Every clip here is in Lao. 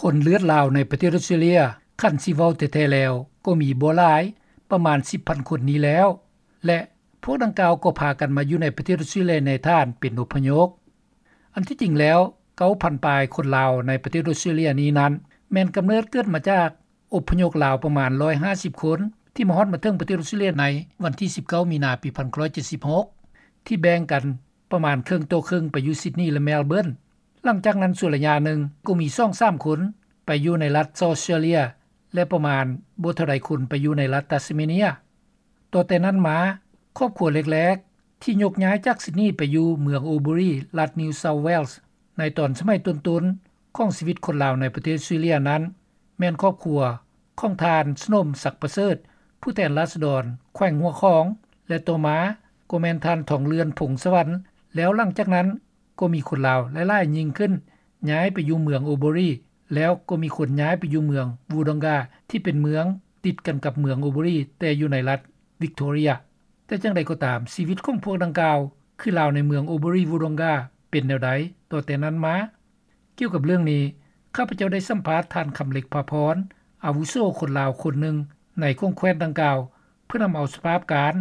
ຄົນເລືອດລາວໃນປະເທດອອສເຕຣເລັຽ ຄັນຊິເວົ້າແທ້ໆແລ້ວ ກໍມີບໍ່ຫຼາຍ ປະມານສິບພັນຄົນນີ້ແລ້ວ ແລະ ພວກດັ່ງກ່າວກໍພາກັນມາຢູ່ໃນປະເທດອອສເຕຣເລັຽໃນຖານເປັນອົບພະຍົບ. ອັນທີ່ຈິງແລ້ວ ເກົ້າພັນປາຍຄົນລາວໃນປະເທດອອສເຕຣເລັຽນີ້ນັ້ນ ແມ່ນກຳເນີດເກີດມາຈາກອົບພະຍົບລາວປະມານຮ້ອຍຫ້າສິບຄົນ ທີ່ມາຮອດມາເຖິງປະເທດອອສເຕຣເລັຽໃນວັນທີສິບເກົ້າ ມີນາ ປີໜຶ່ງພັນເກົ້າຮ້ອຍເຈັດສິບຫົກ ທີ່ແບ່ງກັນປະມານເຄິ່ງຕໍ່ເຄິ່ງໄປຢູ່ຊິດນີ ແລະ ເມລເບີນ. ຫຼັງຈາກນັ້ນຊົ່ວໄລຍະໜຶ່ງກໍມີສອງສາມຄົນໄປຢູ່ໃນລັດເຊົາທເຊເລັຽ ແລະ ປະມານບໍ່ເທົ່າໃດຄົນໄປຢູ່ໃນລັດຕັສເມເນຍ. ຕໍ່ແຕ່ນັ້ນມາ ຄອບຄົວແລກໆ ທີ່ຍົກຍ້າຍຈາກຊິດນີໄປຢູ່ເມືອງໂອເບີຣີ ລັດນິວເຊົາທເວລສ໌ ໃນຕອນສະໄໝຕົ້ນໆຂອງຊີວິດຄົນລາວໃນປະເທດອອສເຕຣເລັຽນັ້ນ ແມ່ນຄອບຄົວຂອງທ່ານ ສະໜົມ ສັກປະເສີດ ຜູ້ແທນລາຊະດອນແຂວງຫົວຂອງ ແລະ ຕໍ່ມາກໍແມ່ນທ່ານ ທອງເລື່ອນ ພົງສະຫວັນ ແລ້ວຫຼັງຈາກນັ້ນ ກໍມີຄົນລາວຫຼາຍໆຍິ່ງຂຶ້ນ ຍ້າຍໄປຢູ່ເມືອງໂອເບີຣີ ແລ້ວກໍມີຄົນຍ້າຍໄປຢູ່ເມືອງວູດອງກາ ທີ່ເປັນເມືອງຕິດກັນກັບເມືອງໂອເບີຣີ ແຕ່ຢູ່ໃນລັດວິກໂທເຣຍ. ແຕ່ຈັ່ງໃດກໍຕາມ ຊີວິດຂອງພວກດັ່ງກ່າວ ຄືລາວໃນເມືອງໂອເບີຣີ ວູດອງກາ ເປັນແນວໃດຕໍ່ແຕ່ນັ້ນມາ? ກ່ຽວກັບເລື່ອງນີ້ ຂ້າພະເຈົ້າໄດ້ສຳພາດທ່ານ ຄຳເລັກ ພາພອນ ອາວຸໂສຄົນລາວຄົນໜຶ່ງໃນຂົງແຂວນດັ່ງກ່າວ ເພື່ອນຳເອົາສະພາບການ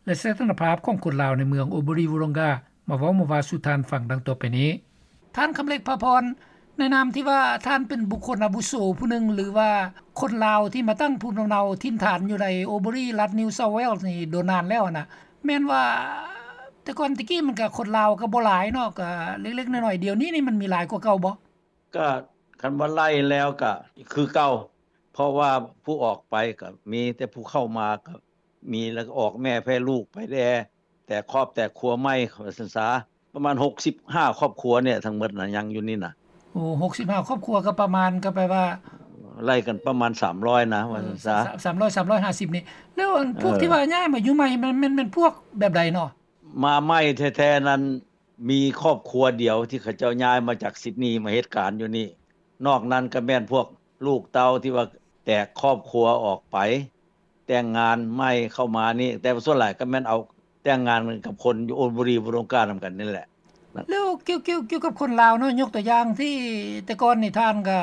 ແລະ ສະຖານະພາບຂອງຄົນລາວໃນເມືອງໂອເບີຣີ ວູດອງກາ ມາເວົ້າມາວ່າສູ່ທ່ານຟັງດັ່ງຕໍ່ໄປນີ້. ທ່ານ ຄຳເລັກ ພາພອນ, ໃນນາມທີ່ວ່າທ່ານເປັນບຸກຄົນອາວຸໂສຜູ້ໜຶ່ງ ຫຼືວ່າຄົນລາວທີ່ມາຕັ້ງພູມລຳເນົາຖິ່ນຖານຢູ່ໃນໂອເບີຣີ ລັດນິວເຊົາທເວລສ໌ນີ້ດົນນານແລ້ວຫັ້ນນະ, ແມ່ນວ່າແຕ່ກ່ອນແຕ່ກີ້ມັນກະຄົນລາວກະບໍ່ຫຼາຍເນາະ, ກະເລັກໆນ້ອຍໆ, ດຽວນີ້ນີ້ມັນມີຫຼາຍກວ່າເກົ່າບໍ່? ກະຄັນວ່າໄລ່ແລ້ວກະຄືເກົ່າ, ເພາະວ່າຜູ້ອອກໄປກະມີ, ແຕ່ຜູ້ເຂົ້າມາກະມີ, ແລ້ວກະອອກແມ່ແຜ່ລູກໄປແດ່, ແຕກຄອບແຕກຄົວໃໝ່ ວ່າຊັ້ນສາ. ປະມານຫົກສິບຫ້າຄອບຄົວນີ້ທັງໝົດນະ ຍັງຢູ່ນີ້ນະ. ໂອ້ ຫົກສິບຫ້າຄອບຄົວ ກະປະມານ ກະແປວ່າ ໄລ່ກັນປະມານສາມຮ້ອຍນະ ວ່າຊັ້ນສາ. ສາມ ສາມຮ້ອຍ ສາມຮ້ອຍຫ້າສິບນີ້. ແລ້ວອັນພວກ ເອີ ທີ່ວ່າຍ້າຍມາຢູ່ໃໝ່ ແມ່ນ ແມ່ນ ແມ່ນພວກແບບໃດເນາະ? ມາໃໝ່ແທ້ໆນັ້ນ ມີຄອບຄົວດຽວທີ່ເຂົາເຈົ້າຍ້າຍມາຈາກຊິດນີມາເຮັດການຢູ່ນີ້. ນອກນັ້ນກະແມ່ນພວກລູກເຕົ້າທີ່ວ່າແຕກຄອບຄົວອອກໄປ ແຕ່ງງານໃໝ່ເຂົ້າມານີ້, ແຕ່ວ່າສ່ວນຫຼາຍກໍແມ່ນເອົາແຕ່ງງານກັນກັບຄົນຢູ່ໂອນບູຣີ ວອງການຳກັນນີ້ແຫຼະ. ແລ້ວກ່ຽວ ກ່ຽວ ກ່ຽວກັບຄົນລາວເນາະ, ຍົກຕົວຢ່າງທີ່ແຕ່ກ່ອນນີ້ທ່ານກໍ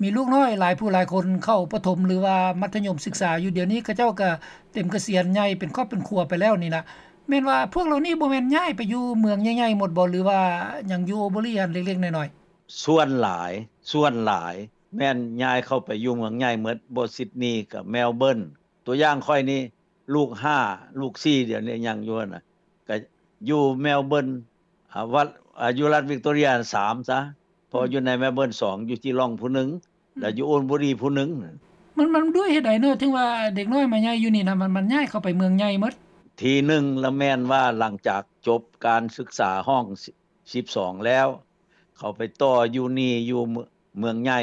ມີລູກນ້ອຍຫຼາຍຜູ້ຫຼາຍຄົນເຂົ້າປະຖົມ ຫຼືວ່າມັດທະຍົມສຶກສາຢູ່, ດຽວນີ້ເຂົາເຈົ້າກໍເຕັມກະສຽນໃຫຍ່ເປັນຄອບເປັນຄົວໄປແລ້ວນີ້ນະ, ແມ່ນວ່າພວກເຫຼົ່ານີ້ບໍ່ແມ່ນຍ້າຍໄປຢູ່ເມືອງໃຫຍ່ໆໝົດບໍ່ ຫຼືວ່າຍັງຢູ່ໂອເບີຣີຫັ້ນເລັກໆນ້ອຍໆ? ສ່ວນຫຼາຍ ສ່ວນຫຼາຍແມ່ນຍ້າຍເຂົ້າໄປຢູ່ເມືອງໃຫຍ່ໝົດ, ບໍ່ ຊິດນີ ກັບ ແມລເບີນ. ຕົວຢ່າງຂ້ອຍນີ້ ລູກຫ້າ ລູກສີ່ ດຽວນີ້ຍັງຢູ່ຫັ້ນນະ, ກະຢູ່ແມລເບີນ ອາ ວັດ ອາ ຢູ່ລັດວິກໂຕເຣຍ ສາມ ຊະ, ເພາະ ອືມ ຢູ່ໃນແມລເບີນ ສອງ, ຢູ່ຈີລອງຜູ້ໜຶ່ງ ອືມ ແລ້ວຢູ່ໂອນບູຣີຜູ້ໜຶ່ງ. ມັນ ມັນດ້ວຍເຫດໃດເນາະ ເຖິງວ່າເດັກນ້ອຍມາໃຫຍ່ຢູ່ນີ້ນະ ມັນ ມັນຍ້າຍເຂົ້າໄປເມືອງໃຫຍ່ໝົດ? ທີໜຶ່ງລະແມ່ນວ່າຫຼັງຈາກຈົບການສຶກສາຫ້ອງ ສິບສອງແລ້ວ ເຂົາໄປຕໍ່ຢູ່ນີ້ຢູ່ເມືອງໃຫຍ່,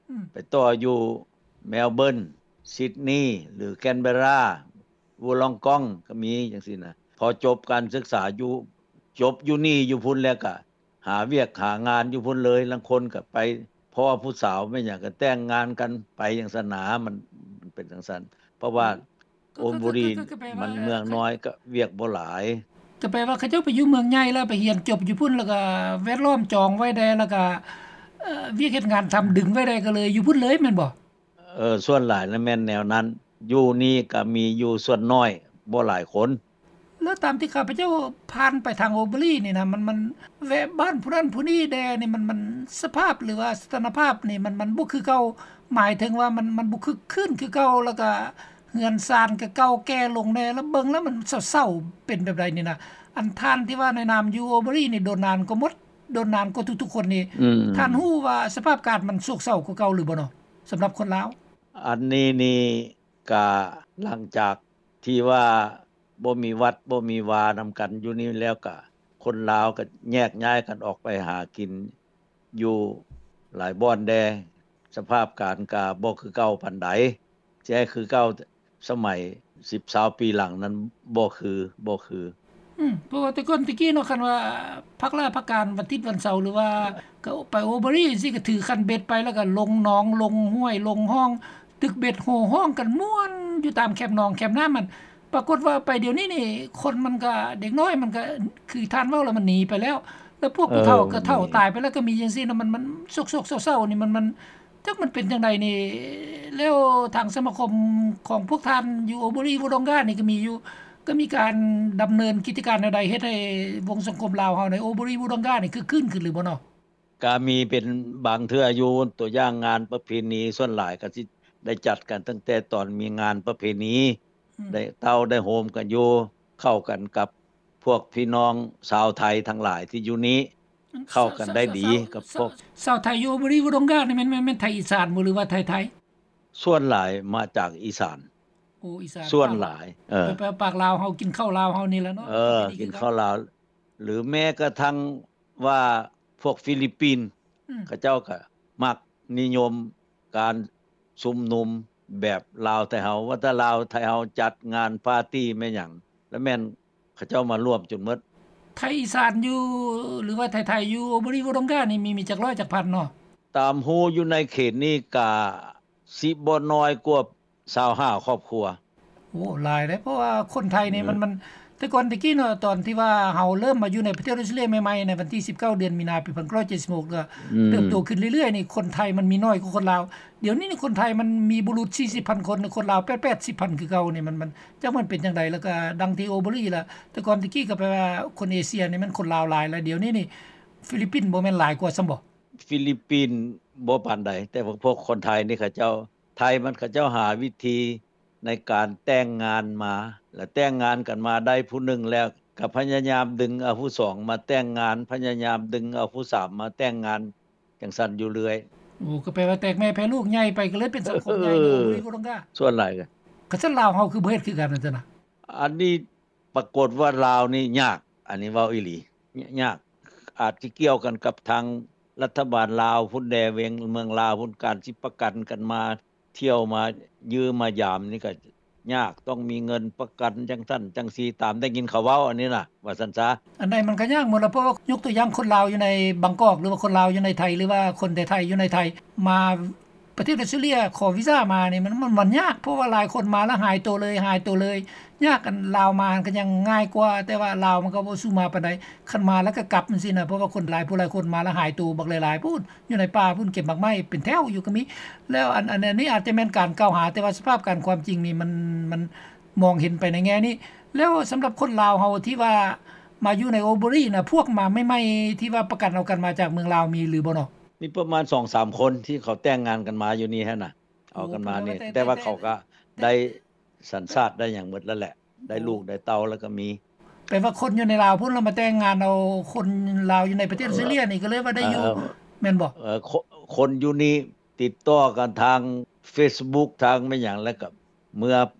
ອືມ ໄປຕໍ່ຢູ່ແມລເບີນ, ຊິດນີ ຫຼື ແກນເບຣາ, ວູລອງກອງ ກໍມີຈັ່ງຊີ້ນະ. ພໍຈົບການສຶກສາຢູ່ ຈົບຢູ່ນີ້ຢູ່ພຸ້ນແລ້ວກະຫາວຽກຫາງານຢູ່ພຸ້ນເລີຍ, ລາງຄົນກະໄປ ເພາະວ່າຜູ້ສາວແມ່ນຫຍັງກະແຕ່ງງານກັນໄປຈັ່ງຊັ້ນນະ, ມັນ ມັນເປັນຈັ່ງຊັ້ນ ເພາະວ່າ ອືມ ໂອນບູຣີ ກໍ ກໍ ກໍ ກໍແປວ່າ ມັນເມືອງນ້ອຍ ເອີ ກໍວຽກບໍ່ຫຼາຍ. ກໍແປວ່າເຂົາເຈົ້າໄປຢູ່ເມືອງໃຫຍ່ແລ້ວ ໄປຮຽນຈົບຢູ່ພຸ້ນ ແລ້ວກໍແວດລ້ອມຈອງໄວ້ແດ່ ແລ້ວກໍ ເອີ ວຽກເຮັດງານທຳດຶງໄວ້ແດ່ ກໍເລີຍຢູ່ພຸ້ນເລີຍແມ່ນບໍ່? ເອີ ສ່ວນຫຼາຍລະແມ່ນແນວນັ້ນ, ຢູ່ນີ້ກໍມີຢູ່ສ່ວນນ້ອຍ ບໍ່ຫຼາຍຄົນ. ແລ້ວຕາມທີ່ຂ້າພະເຈົ້າຜ່ານໄປທາງໂອເບີຣີນີ້ນະ ມັນ ມັນແວະບ້ານຜູ້ນັ້ນຜູ້ນີ້ແດ່ນີ້ ມັນ ມັນສະພາບ ຫຼືວ່າສະຖານະພາບນີ້ ມັນ ມັນບໍ່ຄືເກົ່າ, ໝາຍເຖິງວ່າມັນ ມັນບໍ່ຄຶກຄື້ນຄືເກົ່າ ແລ້ວກະເຮືອນຊານກະເກົ່າແກ່ລົງແດ່ ແລ້ວເບິ່ງແລ້ວມັນເສົ້າໆ ເປັນແບບໃດນີ້ນະ? ອັນທ່ານທີ່ວ່າໃນນາມຢູ່ໂອເບີຣີນີ້ ດົນນານກວ່າໝົດ ດົນນານກວ່າທຸກໆຄົນນີ້ ອືມ ທ່ານຮູ້ວ່າສະພາບການມັນໂສກເສົ້າກວ່າເກົ່າຫຼືບໍ່ເນາະ ສຳລັບຄົນລາວ? ອັນນີ້ນີ້ ກະຫຼັງຈາກທີ່ວ່າບໍ່ມີວັດບໍ່ມີວານຳກັນຢູ່ນີ້ແລ້ວ ກະຄົນລາວກະແຍກຍ້າຍກັນອອກໄປຫາກິນຢູ່ຫຼາຍບ່ອນແດ່, ສະພາບການກະບໍ່ຄືເກົ່າປານໃດ, ຊິໃຫ້ຄືເກົ່າສະໄໝສິບຊາວປີຫຼັງນັ້ນບໍ່ຄື ບໍ່ຄື. ອືມ ເພາະວ່າແຕ່ກ່ອນແຕ່ກີ້ເນາະ ຄັນວ່າພັກລາພັກການວັນທິດວັນເສົາ ຫຼືວ່າກໍໄປໂອເບີຣີຈັ່ງຊີ້ ກໍຖືຄັນເບັດໄປ ແລ້ວກໍລົງໜອງ ລົງຫ້ວຍ ລົງຮ່ອງ ຕຶກເບັດໂຫ່ຮ້ອງກັນມ່ວນຢູ່ຕາມແຄມໜອງແຄມນ້ຳຫັ້ນ. ປາກົດວ່າໄປດຽວນີ້ນີ້ ຄົນມັນກໍ ເດັກນ້ອຍມັນກໍ ຄືທ່ານເວົ້າແລ້ວ ມັນໜີໄປແລ້ວ. ແຕ່ພວກຜູ້ເຖົ້າກໍເຖົ້າຕາຍໄປແລ້ວກໍມີຈັ່ງຊີ້ນະ ມັນ ມັນໂສກໆເສົ້າໆນີ້ ມັນ ມັນ ຈັກມັນເປັນຈັ່ງໃດນີ້. ແລ້ວທາງສະມາຄົມຂອງພວກທ່ານຢູ່ໂອໂບຣີວໍດອງການີ້ກໍມີຢູ່ ກໍມີການດຳເນີນກິດຈະການແນວໃດ ເຮັດໃຫ້ວົງສັງຄົມລາວເຮົາໃນໂອໂບຣີວໍດອງການີ້ຄຶກຄື້ນຂຶ້ນຫຼືບໍ່ເນາະ? ກະມີເປັນບາງເທື່ອຢູ່ ຕົວຢ່າງງານປະເພນີ ສ່ວນຫຼາຍກະຊິໄດ້ຈັດກັນຕັ້ງແຕ່ຕອນມີງານປະເພນີ ອືມ ໄດ້ເຕົ້າໄດ້ໂຮມກັນຢູ່ ເຂົ້າກັນກັບພວກພີ່ນ້ອງຊາວໄທທັງຫຼາຍທີ່ຢູ່ນີ້ ເຂົ້າກັນໄດ້ດີກັບພວກ ຊາວ ຊາວໄທຢູ່ໂອໂບຣີວໍດອງການີ້ແມ່ນ ແມ່ນ ແມ່ນໄທອີສານບໍ່ ຫຼືວ່າໄທໄທ? ສ່ວນຫຼາຍມາຈາກອີສານ. ໂອ້ ອີສານ ສ່ວນຫຼາຍ ເອີ ແປວ່າປາກລາວເຮົາ ກິນເຂົ້າລາວເຮົານີ້ແຫຼະເນາະ ເອີ ປະເພນີ ກິນເຂົ້າລາວ ຫຼືແມ້ກະທັ່ງວ່າພວກຟີລິບປິນ ອືມ ເຂົາເຈົ້າກະມັກນິຍົມການຊຸມນຸມແບບລາວໄທເຮົາ ວ່າແຕ່ລາວໄທເຮົາຈັດງານປາຕີ້ແມ່ນຫຍັງ ລະແມ່ນເຂົາເຈົ້າມາລວມຈົນໝົດ. ໄທອີສານຢູ່ ຫຼືວ່າໄທໄທຢູ່ໂອໂບຣີວໍດອງການີ້ ມີ ມີຈັກຮ້ອຍຈັກພັນເນາະ? ຕາມຮູ້ຢູ່ໃນເຂດນີ້ກະຊິບໍ່ນ້ອຍກວ່າຊາວຫ້າຄອບຄົວ. ໂອ້ ຫຼາຍເດ້ ເພາະວ່າຄົນໄທນີ້ ອືມ ມັນ ມັນ ແຕ່ກ່ອນແຕ່ກີ້ເນາະ ຕອນທີ່ວ່າເຮົາເລີ່ມມາຢູ່ໃນປະເທດອອສເຕຣເລຍໃໝ່ໆ ໃນວັນທີສິບເກົ້າ ເດືອນມີນາ ປີພັນເກົ້າຮ້ອຍເຈັດສິບຫົກ ກໍ ອືມ ເຕີບໂຕຂຶ້ນເລື້ອຍໆນີ້ ຄົນໄທມັນມີໜ້ອຍກວ່າຄົນລາວ. ດຽວນີ້ນີ້ຄົນໄທມັນມີບໍ່ຫຼຸດສີ່ສິບພັນຄົນ ຄົນລາວແປດ ແປດສິບພັນຄືເກົ່ານີ້ ມັນ ມັນ ຈັກມັນເປັນຈັ່ງໃດ ແລ້ວກໍດັ່ງທີ່ໂອໂບຣີລະ ແຕ່ກ່ອນແຕ່ກີ້ກໍແປວ່າຄົນເອເຊຍນີ້ແມ່ນຄົນລາວຫຼາຍ ແລ້ວດຽວນີ້ນີ້ຟີລິບປິນບໍ່ແມ່ນຫຼາຍກວ່າຊ້ຳບໍ່? ຟີລິບປິນບໍ່ປານໃດ ແຕ່ວ່າພວກຄົນໄທນີ້ເຂົາເຈົ້າ ໄທມັນເຂົາເຈົ້າຫາວິທີໃນການແຕ່ງງານມາ ແລະແຕ່ງງານກັນມາໄດ້ຜູ້ໜຶ່ງແລ້ວ ກໍພະຍາຍາມດຶງເອົາຜູ້ສອງມາແຕ່ງງານ ພະຍາຍາມດຶງເອົາຜູ້ສາມມາແຕ່ງງານ ຈັ່ງຊັ້ນຢູ່ເລື້ອຍ. ໂອ້ ກໍແປວ່າແຕກແມ່ແຜ່ລູກໃຫຍ່ໄປ ກໍເລີຍເປັນສັງຄົມໃຫຍ່ ເອີ ໂດຍບໍ່ຕ້ອງການ ສ່ວນຫຼາຍກໍ ຄັນຊັ້ນລາວເຮົາຄືບໍ່ເຮັດຄືກັນຫັ້ນຊັ້ນນະ? ອັນນີ້ປາກົດວ່າລາວນີ້ຍາກ ອັນນີ້ເວົ້າອີ່ຫຼີ ຍ- ຍາກ ອາດຊິກ່ຽວກັນກັບທາງລັດຖະບານລາວພຸ້ນແດ່ ເວງເມືອງລາວພຸ້ນ ການຊິປະກັນກັນມາທ່ຽວມາຢ້ຽມມາຢາມນີ້ກໍຍາກ ຕ້ອງມີເງິນປະກັນຈັ່ງຊັ້ນຈັ່ງຊີ້ ຕາມໄດ້ຍິນເຂົາເວົ້າອັນນີ້ນະ ວ່າຊັ້ນຊະ. ອັນໃດມັນກໍຍາກໝົດລະ ເພາະວ່າຍົກຕົວຢ່າງຄົນລາວຢູ່ໃນບາງກອກ ຫຼືວ່າຄົນລາວຢູ່ໃນໄທ ຫຼືວ່າຄົນໄທຢູ່ໃນໄທ ມາ ປະເທດອອສເຕຣເລຍຂໍວີຊາມານີ້ ມັນ ມັນ ມັນຍາກ ເພາະວ່າຫຼາຍຄົນມາແລ້ວຫາຍໂຕເລີຍ ຫາຍໂຕເລີຍ ຍາກ. ອັນລາວມາມັນກໍຍັງງ່າຍກວ່າ ແຕ່ວ່າລາວມັນກໍບໍ່ສູ້ມາປານໃດ ຄັນມາແລ້ວກໍກັບຈັ່ງຊີ້ນະ ເພາະວ່າຄົນຫຼາຍຜູ້ຫຼາຍຄົນມາແລ້ວຫາຍໂຕບັກຫຼາຍໆ ພຸ້ນ ຢູ່ໃນປ່າພຸ້ນ ເກັບໝາກໄມ້ເປັນແຖວຢູ່ກໍມີ. ແລ້ວອັນ ອັນ ອັນນີ້ອາດຈະແມ່ນການກ່າວຫາ ແຕ່ວ່າສະພາບການຄວາມຈິງນີ້ ມັນ ມັນມອງເຫັນໄປໃນແງ່ນີ້. ແລ້ວສຳລັບຄົນລາວເຮົາທີ່ວ່າມາຢູ່ໃນໂອໂບຣີນະ ພວກມາໃໝ່ໆ ທີ່ວ່າປະກັນເອົາກັນມາຈາກເມືອງລາວ ມີຫຼືບໍ່ເນາະ? ມີປະມານສອງສາມຄົນທີ່ເຂົາແຕ່ງງານກັນມາຢູ່ນີ້ຫັ້ນນະ ເອົາກັນມານີ້ ໂອ້ ແຕ່ວ່າເຂົາກໍໄດ້ສັນຊາດໄດ້ຫຍັງໝົດແລ້ວແຫຼະ ໄດ້ລູກໄດ້ເຕົ້າແລ້ວກໍມີ. ແປວ່າຄົນຢູ່ໃນລາວພຸ້ນລະມາແຕ່ງງານເອົາຄົນລາວຢູ່ໃນປະເທດອອສເຕຣເລຍນີ້ ກໍເລີຍວ່າໄດ້ຢູ່ ເອີ ແມ່ນບໍ່? ເອີ ຄົນຢູ່ນີ້ຕິດຕໍ່ກັນທາງເຟສບຸກ ທາງແມ່ນຫຍັງ ແລ້ວກໍເມືອ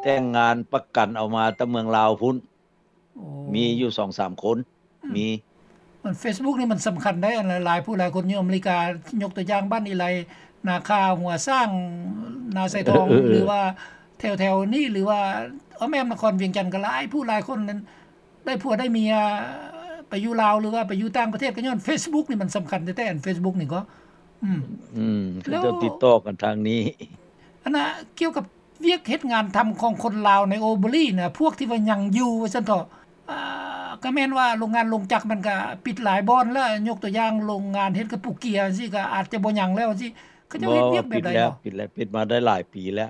ແຕ່ງງານປະກັນເອົາມາແຕ່ເມືອງລາວພຸ້ນ. ໂອ້ ມີຢູ່ສອງສາມຄົນ ອືມ ມີ. ມັນເຟສບຸກນີ້ມັນສຳຄັນໄດ໋ ອັນຫຼາຍຜູ້ຫຼາຍຄົນຢູ່ອາເມລິກາ ຍົກຕົວຢ່າງບ້ານອີໄລ ນາຄາ ຫົວຊ້າງ ນາຊາຍທອງ ເອີ ຫຼືວ່າແຖວໆນີ້ ຫຼືວ່າອ້ອມແອ້ມນະຄອນວຽງຈັນ ກໍຫຼາຍຜູ້ຫຼາຍຄົນນັ້ນ ໄດ້ຜົວໄດ້ເມຍໄປຢູ່ລາວ ຫຼືວ່າໄປຢູ່ຕ່າງປະເທດ ກໍຍ້ອນເຟສບຸກນີ້ມັນສຳຄັນແທ້ໆ ອັນເຟສບຸກນີ້ກໍ ອືມ ອືມ ເຂົາເຈົ້າຕິດຕໍ່ກັນທາງນີ້. ອັນນ່າ ກ່ຽວກັບວຽກເຮັດງານທຳຂອງຄົນລາວໃນໂອໂບຣີນະ ພວກທີ່ວ່າຍັງຢູ່ວ່າຊັ້ນເຖາະ ອ່າ ກໍແມ່ນວ່າໂລງງານໂລງຈັກມັນກໍປິດຫຼາຍບ່ອນແລ້ວ ຍົກຕົວຢ່າງໂລງງານເຮັດກະປຸກເກຍຈັ່ງຊີ້ ກໍອາດຈະບໍ່ຍັງແລ້ວຈັ່ງຊີ້ ເຂົາເຈົ້າເຮັດວຽກແບບໃດເນາະ? ປິດແລ້ວ ປິດມາໄດ້ຫຼາຍປີແລ້ວ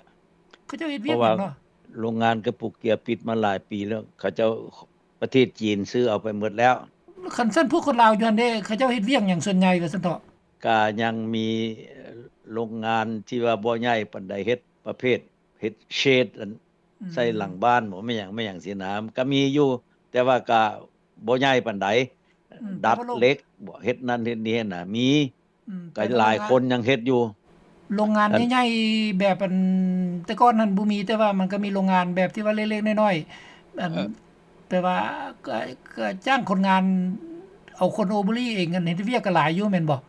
ເຂົາເຈົ້າເຮັດວຽກຫຍັງເນາະ? ໂລງງານກະປຸກເກຍປິດມາຫຼາຍປີແລ້ວ ເຂົາເຈົ້າ ປະເທດຈີນຊື້ເອົາໄປໝົດແລ້ວ. ຄັນຊັ້ນພວກຄົນລາວຢູ່ຫັ້ນເດ້ ເຂົາເຈົ້າເຮັດວຽກຫຍັງສ່ວນໃຫຍ່ວ່າຊັ້ນເຖາະ? ກະຍັງມີໂລງງານທີ່ວ່າບໍ່ໃຫຍ່ປານໃດ ເຮັດປະເພດເຮັດເຊດ ອັນ ອືມ ໃສ່ຫຼັງບ້ານບໍ ແມ່ນຫຍັງ ແມ່ນຫຍັງຊີ້ນະ ກະມີຢູ່ ແຕ່ວ່າກະບໍ່ໃຫຍ່ປານໃດ ອືມ ດັດເຫຼັກບໍ ເຮັດນັ້ນເຮັດນີ້ນະ ມີ ອືມ ກໍຫຼາຍຄົນຍັງເຮັດຢູ່ ໂລງງານໃຫຍ່ໆ ແບບອັນ ແຕ່ກ່ອນຫັ້ນບໍ່ມີ ແຕ່ວ່າມັນກໍມີໂລງງານແບບທີ່ວ່າເລັກໆນ້ອຍໆ ອັນ ເອີ ແປວ່າກໍ ກໍຈ້າງຄົນງານ ເອົາຄົນໂອໂບຣີເອງ ອັນເຮັດວຽກກໍຫຼາຍຢູ່ແມ່ນບໍ່?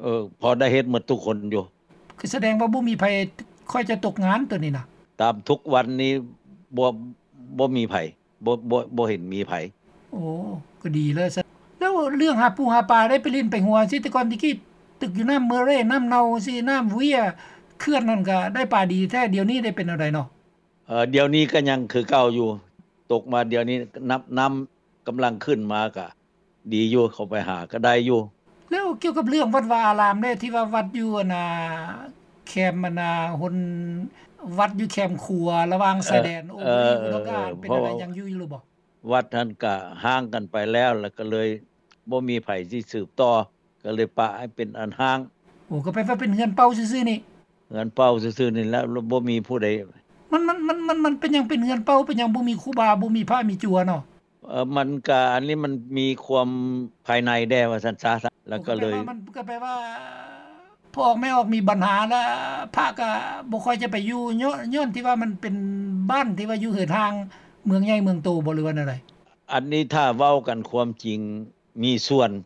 ເອີ ພໍໄດ້ເຮັດໝົດທຸກຄົນຢູ່ ຄືສະແດງວ່າບໍ່ມີໃຜຄ່ອຍຈະຕົກງານໂຕນີ້ນະ ຕາມທຸກວັນນີ້ບໍ່ ບໍ່ມີໃຜ ບໍ່ ບໍ່ ບໍ່ເຫັນມີໃຜ. ໂອ້ ກໍດີແລ້ວຊັ້ນ ແລ້ວເລື່ອງຫາປູຫາປາ ໄດ້ໄປຫຼິ້ນໄປຫົວ ຊິແຕ່ກ່ອນແຕ່ກີ້ ຕຶກຢູ່ນ້ຳເມີເຣ ນ້ຳເນົ່າ ຊິນ້ຳເວຍ ເຂື່ອນນັ້ນກໍໄດ້ປາດີແທ້ ດຽວນີ້ໄດ້ເປັນແນວໃດເນາະ? ເອີ ດຽວນີ້ກໍຍັງຄືເກົ່າຢູ່ ຕົກມາດຽວນີ້ ນ້ຳ ນ້ຳກຳລັງຂຶ້ນມາ ກໍ ດີຢູ່ ເຂົ້າໄປຫາກໍໄດ້ຢູ່. ແລ້ວກ່ຽວກັບເລື່ອງວັດວາອາຣາມເດ້ ທີ່ວ່າວັດຢູ່ອັນນ່າ ແຄມອັນນ່າ ຫົນ ວັດຢູ່ແຄມຂົວລະຫວ່າງຊາຍແດນ ເອີ ໂອເບຣີ ເອີ ອຸດົງກາ ເອີ ເປັນ ເພາະ ອັນໃດ ຍັງຢູ່ຢູ່ຫຼືບໍ່? ວັດຫັ້ນກະຮ້າງກັນໄປແລ້ວ ແລ້ວກໍເລີຍບໍ່ມີໃຜຊິສືບຕໍ່ ກໍເລີຍປະໃຫ້ເປັນອັນຮ້າງ. ໂອ້ ກໍແປວ່າເປັນເຮືອນເປົ່າຊື່ໆນີ້? ເຮືອນເປົ່າຊື່ໆນີ້ແຫຼະ ບໍ່ມີຜູ້ໃດ. ມັນ ມັນ ມັນ ມັນ ມັນເປັນຫຍັງເປັນເຮືອນເປົ່າ? ເປັນຫຍັງບໍ່ມີຄູບາ ບໍ່ມີພະມີຈົວເນາະ? ເອີ ມັນກະ ອັນນີ້ມັນມີຄວາມພາຍໃນແດ່ວ່າຊັ້ນຊະ ແລ້ວກໍເລີຍ ມັນກໍແປວ່າ ພໍ່ອອກແມ່ອອກມີບັນຫາ ແລ້ວພະກໍບໍ່ຄ່ອຍຈະໄປຢູ່ ຍ້ອນ ຍ້ອນທີ່ວ່າມັນເປັນບ້ານທີ່ວ່າຢູ່ເຫີນຫ່າງເມືອງໃຫຍ່ເມືອງໂຕບໍ່ ຫຼືວ່າແນວໃດ? ອັນນີ້ຖ້າເວົ້າກັນຄວາມຈິງ ມີສ່ວນ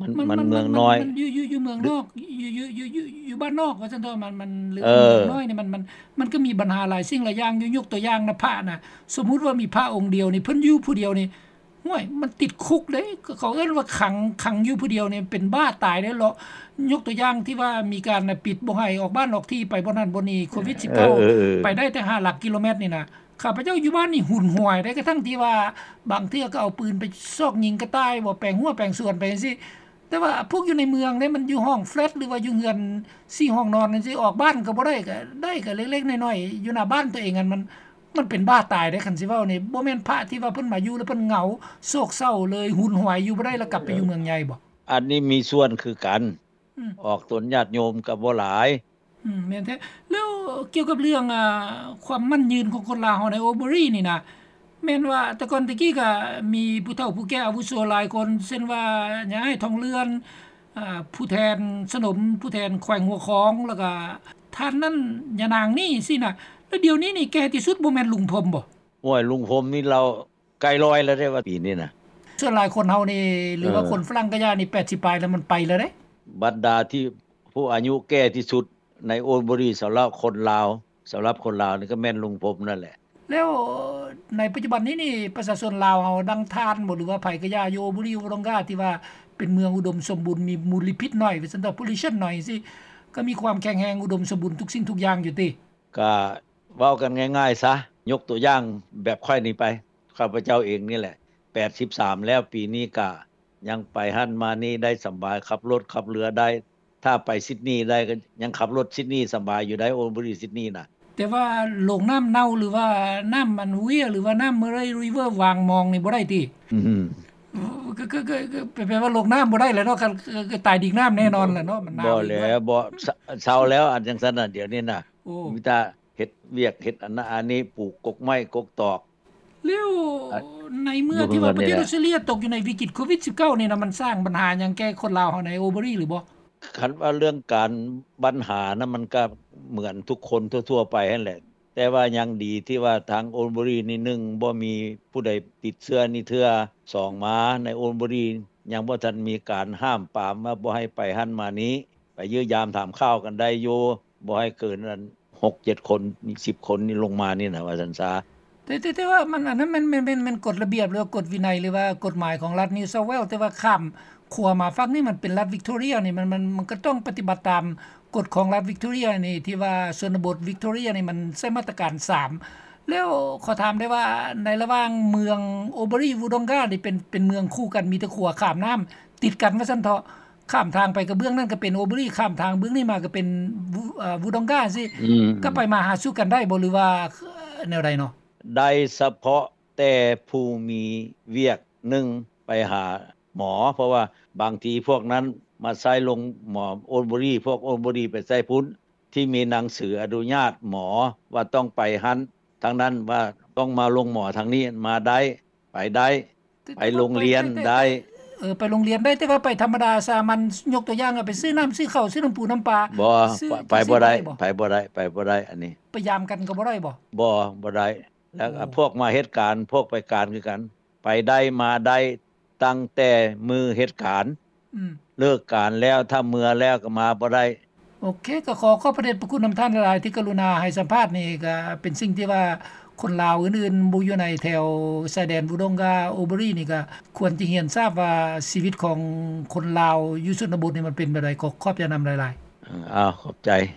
ມັນ ມັນ ມັນ ມັນເມືອງນ້ອຍ ມັນຢູ່ ຢູ່ ຢູ່ເມືອງນອກ ຢູ່ ຢູ່ ຢູ່ ຢູ່ ຢູ່ບ້ານນອກວ່າຊັ້ນເຖາະ ມັນ ມັນ ຫຼື ເອີ ເມືອງນ້ອຍນີ້ ມັນ ມັນ ມັນກໍມີບັນຫາຫຼາຍສິ່ງຫຼາຍຢ່າງຢູ່. ຍົກຕົວຢ່າງນະ ພະນະ ສົມມຸດວ່າມີພະອົງດຽວນີ້ ເພິ່ນຢູ່ຜູ້ດຽວນີ້ ໂອ້ຍ ມັນຕິດຄຸກເດ້ ເຂົາເອີ້ນວ່າຂັງ ຂັງຢູ່ຜູ້ດຽວນີ້ເປັນບ້າຕາຍເດ້ເລາະ. ຍົກຕົວຢ່າງທີ່ວ່າມີການນະ ປິດບໍ່ໃຫ້ອອກບ້ານອອກທີ່ ໄປບ່ອນນັ້ນບ່ອນນີ້ ໂຄວິດສິບເກົ້າ ເອີ ເອີ ເອີ ໄປໄດ້ແຕ່ຫ້າຫຼັກກິໂລແມັດນີ້ນະ. ຂ້າພະເຈົ້າຢູ່ບ້ານນີ້ຫຸນຫວາຍໄດ້ ກະທັ່ງທີ່ວ່າບາງເທື່ອກໍເອົາປືນໄປຊອກຍິງກະຕ່າຍບໍ ແປງຮົ້ວແປງສວນໄປຈັ່ງຊີ້. ແຕ່ວ່າພວກຢູ່ໃນເມືອງເດ້ ມັນຢູ່ຫ້ອງແຟລັດ ຫຼືວ່າຢູ່ເຮືອນສີ່ຫ້ອງນອນຈັ່ງຊີ້ ອອກບ້ານກໍບໍ່ໄດ້ ກໍໄດ້ກໍເລັກໆນ້ອຍໆ ຢູ່ໜ້າບ້ານຕົວເອງຫັ້ນ ມັນ ມັນເປັນບ້າຕາຍເດ້ ຄັນຊິເວົ້ານີ້. ບໍ່ແມ່ນພະທີ່ວ່າເພິ່ນມາຢູ່ແລ້ວເພິ່ນເຫງົາໂສກເສົ້າເລີຍ ຫຸນຫວາຍຢູ່ບໍ່ໄດ້ ແລ້ວກັບໄປຢູ່ເມືອງໃຫຍ່ບໍ? ອັນນີ້ມີສ່ວນຄືກັນ ອືມ ອອກຕົນຍາດໂຍມກໍບໍ່ຫຼາຍ. ອືມ ແມ່ນແທ້. ແລ້ວກ່ຽວກັບເລື່ອງ ອ່າ ຄວາມໝັ້ນຍືນຂອງຄົນລາວເຮົາໃນໂອເບີຣີນີ້ນະ ແມ່ນວ່າແຕ່ກ່ອນແຕ່ກີ້ກໍມີຜູ້ເຖົ້າຜູ້ແກ່ອາວຸໂສຫຼາຍຄົນ ເຊັ່ນວ່າຍາຍທອງເລື່ອນ ອ່າ ຜູ້ແທນສະໜົມ ຜູ້ແທນແຂວງຫົວຂອງ ແລ້ວກໍທ່ານນັ້ນ ຍານາງນີ້ຊີ້ນະ. ແລ້ວດຽວນີ້ນີ້ແກ່ທີ່ສຸດບໍ່ແມ່ນລຸງພົມບໍ? ໂອ້ຍ ລຸງພົມນີ້ລາວ ໃກ້ຮ້ອຍແລ້ວເດ້ວ່າປີນີ້ນະ. ສ່ວນຫຼາຍຄົນເຮົານີ້ ຫຼືວ່າ ເອີ ຄົນຝຣັ່ງກະຢ່ານີ້ ແປດສິບປາຍແລ້ວ ມັນໄປແລ້ວເດ້. ບັນດາທີ່ຜູ້ອາຍຸແກ່ທີ່ສຸດໃນໂອນເບີຣີ ສຳລັບຄົນລາວ ສຳລັບຄົນລາວນີ້ກໍແມ່ນລຸງພົມນັ້ນແຫຼະ. ແລ້ວໃນປັດຈຸບັນນີ້ນີ້ ປະຊາຊົນລາວເຮົາ ດັ່ງທ່ານບໍ ຫຼືວ່າໃຜກະຢ່າ ຢູ່ໂອນເບີຣີ ວູດົງກາ ທີ່ວ່າເປັນເມືອງອຸດົມສົມບູນ ມີມົນລະພິດໜ້ອຍ ວ່າຊັ້ນເຖາະ ໂພລູຊັນໜ້ອຍຊີ້ ກໍມີຄວາມແຂງແຮງ ອຸດົມສົມບູນທຸກສິ່ງທຸກຢ່າງຢູ່ຕິ? ກະເວົ້າກັນງ່າຍໆຊະ ຍົກຕົວຢ່າງແບບຂ້ອຍນີ້ໄປ ຂ້າພະເຈົ້າເອງນີ້ແຫຼະ ແປດສິບສາມແລ້ວ ປີນີ້ກະຍັງໄປຫັ້ນມານີ້ໄດ້ສະບາຍ ຂັບລົດຂັບເຮືອໄດ້ ຖ້າໄປຊິດນີໄດ້ ກໍຍັງຂັບລົດຊິດນີສະບາຍຢູ່ໄດ໋ ໂອນເບີຣີ ຊິດນີນະ. ແຕ່ວ່າໂລງນ້ຳເນົ່າ ຫຼືວ່ານ້ຳອັນເວຍ ຫຼືວ່ານ້ຳເມີຣ໌ເຣຍຣີເວີ ວາງມອງນີ້ບໍ່ໄດ້ຕິ? ອືມ ກໍ ກໍ ກໍ ກໍແປວ່າລົງນ້ຳບໍ່ໄດ້ແຫຼະເນາະ ກໍ ກໍຕາຍດິກນ້ຳແນ່ນອນແຫຼະເນາະ ມັນໜາວອີກດ້ວຍ. ບໍ່ແລ້ວ ບໍ່ ເຊົາແລ້ວ ອັນຈັ່ງຊັ້ນນະ ດຽວນີ້ນະ ໂອ້ ມີແຕ່ເຮັດວຽກເຮັດອັນນັ້ນອັນນີ້ ປູກກົກໄມ້ກົກຕອກ. ແລ້ວໃນເມື່ອທີ່ວ່າປະເທດອອສເຕຣເລຍຕົກຢູ່ໃນວິກິດໂຄວິດສິບເກົ້ານີ້ນະ ມັນສ້າງບັນຫາຫຍັງແກ່ຄົນລາວເຮົາໃນໂອນເບີຣີຫຼືບໍ່? ຄັນວ່າເລື່ອງການບັນຫານະ ມັນກໍເໝືອນທຸກຄົນທົ່ວໆໄປຫັ້ນແຫຼະ ແຕ່ວ່າຍັງດີທີ່ວ່າທາງໂອນເບີຣີນີ້ ໜຶ່ງ ບໍ່ມີຜູ້ໃດຕິດເຊື້ອນີ້ເທື່ອ ສອງ ມາໃນໂອນເບີຣີຍັງບໍ່ທັນມີການຫ້າມປາມວ່າບໍ່ໃຫ້ໄປຫັ້ນມານີ້ ໄປຢ້ຽມຢາມຖາມຂ່າວກັນໄດ້ຢູ່ ບໍ່ໃຫ້ເກີນອັນຫົກເຈັດຄົນ ສິບຄົນນີ້ລົງມານີ້ນະ ວ່າຊັ້ນຊະ. ແຕ່ ແຕ່ ແຕ່ວ່າມັນ ອັນນັ້ນແມ່ນ ແມ່ນ ແມ່ນ ແມ່ນກົດລະບຽບ ຫຼືວ່າກົດວິໄນ ຫຼືວ່າກົດໝາຍຂອງລັດນິວເຊົາແວລ ແຕ່ວ່າຂ້າມຂົວມາຝັ່ງນີ້ ມັນເປັນລັດວິກໂທເຣຍນີ້ ມັນ ມັນ ມັນກໍຕ້ອງປະຕິບັດຕາມກົດຂອງລັດວິກໂທເຣຍນີ້ ທີ່ວ່າຊົນນະບົດວິກໂທເຣຍນີ້ ມັນໃຊ້ມາດຕະການສາມ. ແລ້ວຂໍຖາມໄດ້ວ່າ ໃນລະຫວ່າງເມືອງໂອນເບີຣີ ວູດົງການີ້ ເປັນ ເປັນເມືອງຄູ່ກັນ ມີແຕ່ຂົວຂ້າມນ້ຳຕິດກັນວ່າຊັ້ນເຖາະ ຂ້າມທາງໄປກະເບື້ອງນັ້ນກະເປັນໂອນເບີຣີ ຂ້າມທາງເບື້ອງນີ້ມາກະເປັນ ວູ ເອີ ວູດົງກາຊີ້ ອືມ ກະໄປມາຫາສູ່ກັນໄດ້ບໍ່ ຫຼືວ່າແນວໃດເນາະ? ໄດ້ສະເພາະແຕ່ຜູ້ມີວຽກ ໜຶ່ງ ໄປຫາໝໍ ເພາະວ່າບາງທີພວກນັ້ນມາໃຊ້ໂລງໝໍໂອນເບີຣີ ພວກໂອນເບີຣີໄປໃຊ້ພຸ້ນ ທີ່ມີໜັງສືອະນຸຍາດໝໍວ່າຕ້ອງໄປຫັ້ນ ທາງນັ້ນວ່າຕ້ອງມາໂລງໝໍທາງນີ້ ມາໄດ້ ໄປໄດ້ ໄປໂລງຮຽນໄດ້. ເອີ ໄປໂລງຮຽນໄດ້ ແຕ່ວ່າໄປທຳມະດາສາມັນ ຍົກຕົວຢ່າງ ໄປຊື້ນ້ຳຊື້ເຂົ້າ ຊື້ນ້ຳປູນ້ຳປາ ບໍ່ ໄປບໍ່ໄດ້ ໄປບໍ່ໄດ້ ໄປບໍ່ໄດ້ ອັນນີ້ ໄປຢາມກັນກໍບໍ່ໄດ້ບໍ? ບໍ່ ບໍ່ໄດ້. ແລ້ວ ໂອ້ ພວກມາເຮັດການ ພວກໄປການຄືກັນ ໄປໄດ້ມາໄດ້ ຕັ້ງແຕ່ມື້ເຮັດການ ອືມ ເລີກການແລ້ວ ຖ້າເມືອແລ້ວກໍມາບໍ່ໄດ້. ໂອເຄ ກໍຂໍຂອບພະເດດພະຄຸນນຳທ່ານຫຼາຍໆ ທີ່ກະລຸນາໃຫ້ສຳພາດນີ້ ກໍເປັນສິ່ງທີ່ວ່າຄົນລາວອື່ນໆ ບໍ່ຢູ່ໃນແຖວຊາຍແດນວູດົງກາ ໂອນເບີຣີນີ້ ກໍຄວນຈະຮຽນຊາບວ່າຊີວິດຂອງຄົນລາວຢູ່ຊົນນະບົດນີ້ມັນເປັນແບບໃດ. ກໍຂອບໃຈນຳຫຼາຍໆ. ເອີ ອ້າວ ຂອບໃຈ.